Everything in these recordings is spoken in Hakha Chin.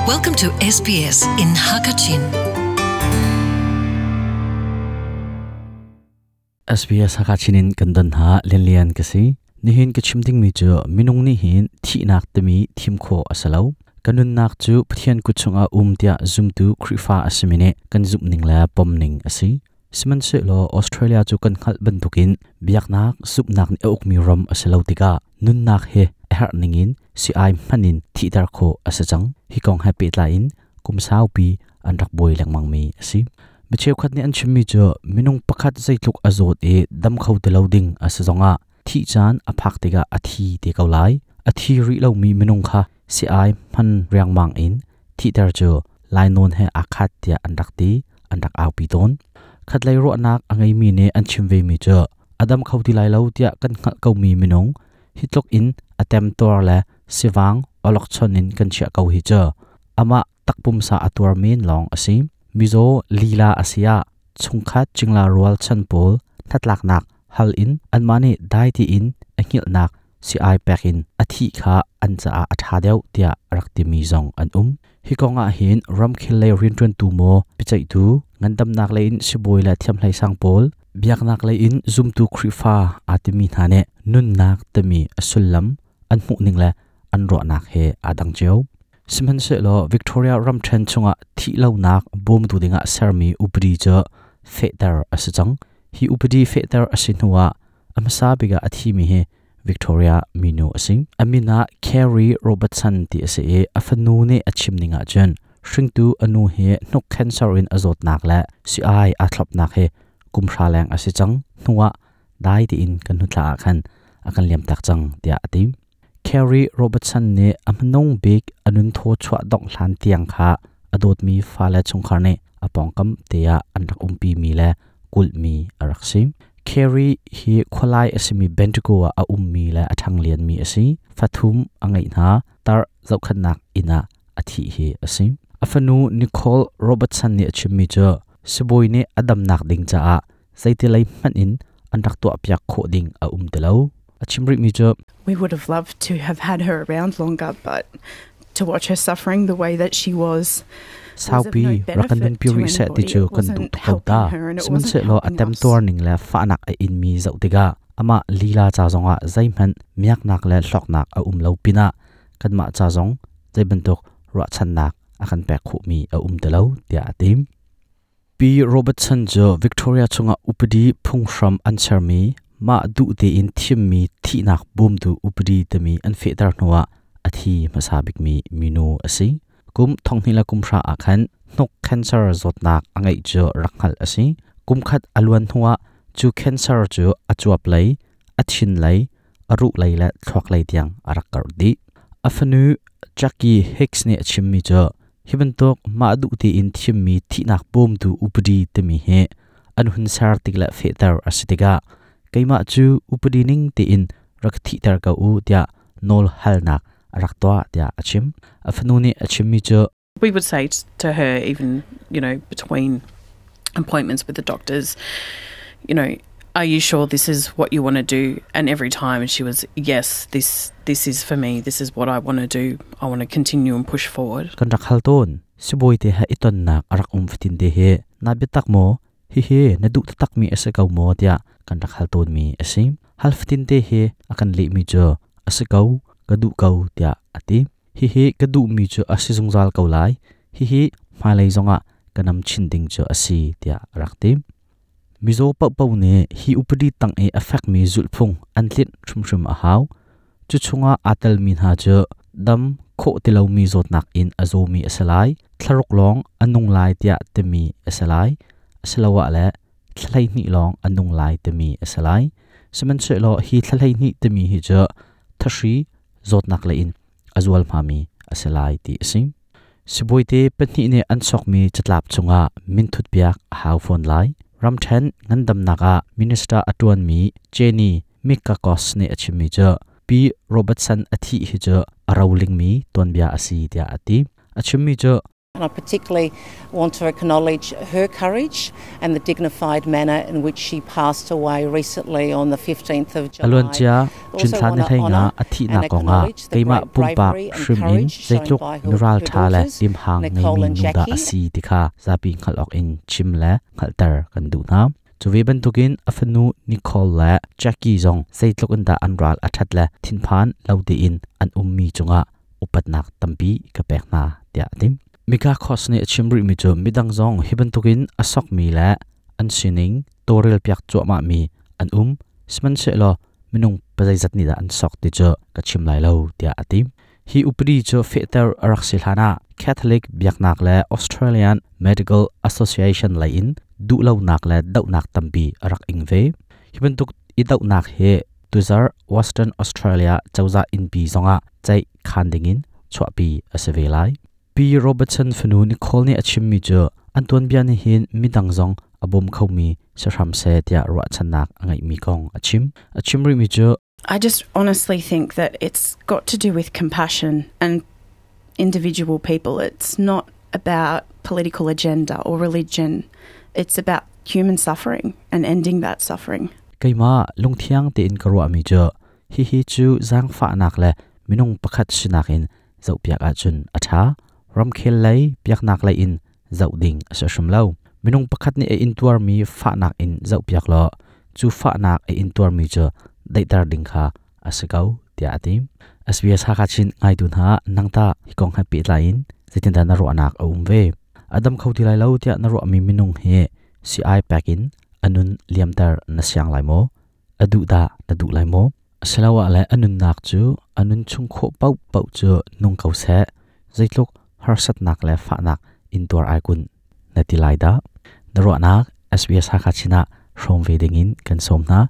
Welcome to SBS in Hakachin. SBS Hakachin in kan don ha lianlian ka si. Nihin ka chim ding mi cu minung nih hin thihnak timi thim kho a si lo. Kan nunnak cu Pathian kut chungah um tiah zumtu Khrihfa a simi nih kan zumhning le pomning a si. Sihmanhsehlaw Australia cu kan hngalh bantukin biaknak zumhnak nih a ukmi ram a si lo tikah nunnak hi a herh ningin si-ai hman in thihter khawh a si cang. Hi kong he pehtlai in kum saupi an rak buai lengmangmi a si. Mi cheukhat nih an chimmi cu minung pakhat zeitluk a zawt i dam kho ti lo ding a si zongah thih caan a phak tikah a thi te ko lai. A thi rih lomi minung kha si-ai hman riangmang in thihter cu lainawn he aa khat tiah an rak ti, an rak aupi tawn. Khatlei ruahnak a ngeimi nih an chim vemi cu a dam kho ti lai lo tiah kan hngalh komi minung hi tluk in a temtuar le sivang awlokchon in kan chiah ko hi cu amah takpumsa a tuar men lawng a si. Mizaw lila a si ah chungkhat cingla rual chan pawl hnatlaknak hal in anmah nih dai tiin a hngilhnak si-ai pek in a thih kha an caah a ṭha deuh tiah a rak timi zong an um. Hi kong ah hin ramkhel lei rianṭuantu maw, biaceihtu, ngandamnak lei in sibawi le thiamhleisang pawl, biaknak lei in zumtu Khrihfa aa timi hna nih nunnak timi a sullam an hmuhning le an ruahnak he aa dang cio. Sihmanhsehlaw Victoria ramṭhen chungah thihlonak bawmtu dingah sermi upadi cu fehter a si cang. Hi upadi fehter a si hnuah A hmasa bik ah a thimi hi Victoria minu a si. A min ah Carrie Robertson ti a si i a fanu nih a chim ning ahcun hringtu a nu hi hnuk cancer in a zawtnak le si-ai aa thlopnak hi kum hra leng a si cang. Hnu ah dai tiin kan hnu thla ah khan a kan liamtak cang tiah a ti. Carrie Robertson nih a hmanung bik a nun thaw chuah dongh hlan tiang kha a dawtmi fale chungkhar nih a pawngkam te ah an rak umpimi le kulhmi a rak si. Carrie hi khualai a simi Bendigo ah a ummi le a ṭhanglianmi a si. Fathum a ngeih hna. Tar zohkhenhnak inn ah a thih hi a si. A fanu Nicole Robertson nih a chimmi cu sibawi nih a damnak ding caah zeiti lei hmanh in an rak tuahpiak khawh ding a um ti lo. A chim rihmi cu We would have loved to have had her around longer, but to watch her suffering the way that she was Saupi rak kan nunpi rih seh ti cu kan duh tuk ko ta. Sihmanhsehlaw a temtuar ning le fahnak a inmi zoh tikah amah lila ca zongah zeihmanh miaknak le hlawknak a um lo pinah kanmah ca zong zeibantuk ruahchannak a kan pek khawhmi a um ti lo tiah a ti. Pi Robertson cu Victoria chungah upadi phunghram an sermi mah duh tein thimmi thihnak bawmtu upadi timi an fehter hnuah a thi hmasa bikmi minu a si. Kum thonghnih le kum hra ah khan hnuk cancer zawtnak a ngeih cu rak hngalh a si. Kum khat a luan hnuah cu cancer cu a cuap lei, a thin lei, a ruh lei le thluak lei tiang a rak karh dih. A fanu Jackie Hicks nih a chimmi cu hi bantuk mah duh tein thimmi thihnak bawmtu upadi timi hi an hun ser tik le fehter a si tikah keimah cu upadi ning tein rak thihter ko u tiah nawl halnak a rak tuah tiah a chim. A fanu nih a chimmi cu We would say to her even, you know, between appointments with the doctors, you know, are you sure this is what you want to do? And every time she was, yes, this this is for me. This is what I want to do. I want to continue and push forward. Kan rak hal tawn. Sibawi te he i tonnak a rak um fatin te hi na biatak maw? Hihi na duh taktakmi a si ko maw tiah kan rak hal tawnmi a si. Hal fatin te hi a kan lehmi cu a si ko, ka duh ko tiah a ti. Hihi ka duhmi cu a si zungzal ko lai. Hihi hmailei zongah ka nam chin ding cu a si tiah a rak ti. Mizaw paohpaoh nih hi upadi tang i a fekmi zulhphung an tlinh hrimhrim a hau. Cu chungah aa telmi hna cu dam khawh ti lomi zawtnak in a zawmi a si lai, thlaruk lawng a nung lai tiah timi a si lai, asiloah le thla 12 lawng a nung lai timi a si lai. Sihmanhsehlaw hi thla 12 timi hi cu thahri zawtnak lei in a zualhmami a si lai ti a si. Sibawi pahnih nih an sokmi catlap chungah minthut piak a hau fawn lai. Ramṭhen ngandamnak ah minister a ṭuanmi Jenny Mikakos nih a chimmi cu Pi Robertson a thih hi cu a rolingmi tuanbia a si tiah a ti. A chimmi cu. And I particularly want to acknowledge her courage and the dignified manner in which she passed away recently on the 15th of July. A luancia June thla ni 15 a thihnak kongah keimah pumpak hrim in zeitluk miral ṭha le limhang ngeimi nu dah a si ti kha zapi hngalh awk in chim le hngalhter kan duh hna. Cu ve bantukin a fanu Nicole le Jackie zong zeitluk in dah an ral a ṭhat le thinphan lo tein an ummi cungah upatnak tampi ka pek hna tiah a ti. Mikakos nih a chim rihmi cu midang zong hi bantukin a sokmi le an sining tawlrelpiak cuahmahmi an um. Sihmanhsehlaw minung pazeizat nih dah an sok ti cu ka chim lai lo tiah a ti. Hi upadi cu fehter a rak si hlanah Catholic biaknak le Australian Medical Association lei in duhlonak le dohnak tampi a rak ing ve. Hi bantuk i dohnak hi tuzarh Western Australia cozah innpi zongah ceih khan dingin chuahpi a si ve lai. Pi Robertson fanu Nicole nih a chimmi cu an tuanbia nih hin midang zong a bawm khomi si hram seh tiah ruahchannak a ngeihmi kong a chim. A chim rihmi cu I just honestly think that it's got to do with compassion and individual people. It's not about political agenda or religion. It's about human suffering and ending that suffering. Keimah lungthiang tein ka ruahmi cu hihi cu zaangfahnak le minung pakhat sinak in zohpiak ahcun a ṭha. Ramkhel lei biaknak lei in zoh ding a si hrim lo. Minung pakhat nih a intuarmi fahnak in zohpiak law cu fahnak a intuarmi cu daihter ding kha a si ko tiah a ti. SBS Hakha Chin ngaitu hna nangta hi kong he pehtlai in zeitindah na ruahnak a um ve? A dam kho ti lai lo tiah na ruahmi minung hi sii pek in a nun liamter na siang lai maw? A duh dah na duh lai maw? Asiloah le a nunnak cu a nun chung khawh paohpaoh cu nung ko seh, zeitluk harsatnak le fahnak intuar ai kun na ti lai dah? Na ruahnak SBS Hakha Chin ah hrawm ve dingin kan sawm hna.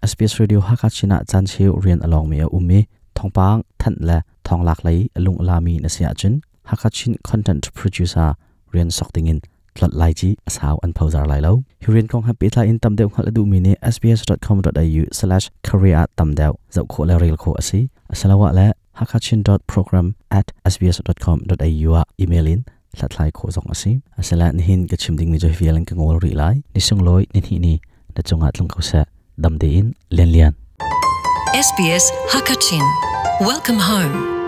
SBS Radio Hakha Chin ah caan cheu rian a lawngmi a um i thawngpang thanh le thawnglak lei a lung a lami na si ahcun Hakha Chin Content Producer rian sok dingin tlolh lai ci a sau an phozar lai lo. Hi rian kong he pehtlai in tam deuh hngalh a duhmi nih sbs.com.au/career ah tam deuh zoh khawh le rel khawh a si. Asiloah le hakachin.program@sbs.com.au ah email in hlathlai khawh zong a si. Asila nihin ka chim dingmi cu hi vial in ka ngol rih lai. Ni sunglawi ni hnih ni na cungah tlung ko seh. Dam tein Lian Lian. SBS Hakachin. Welcome home.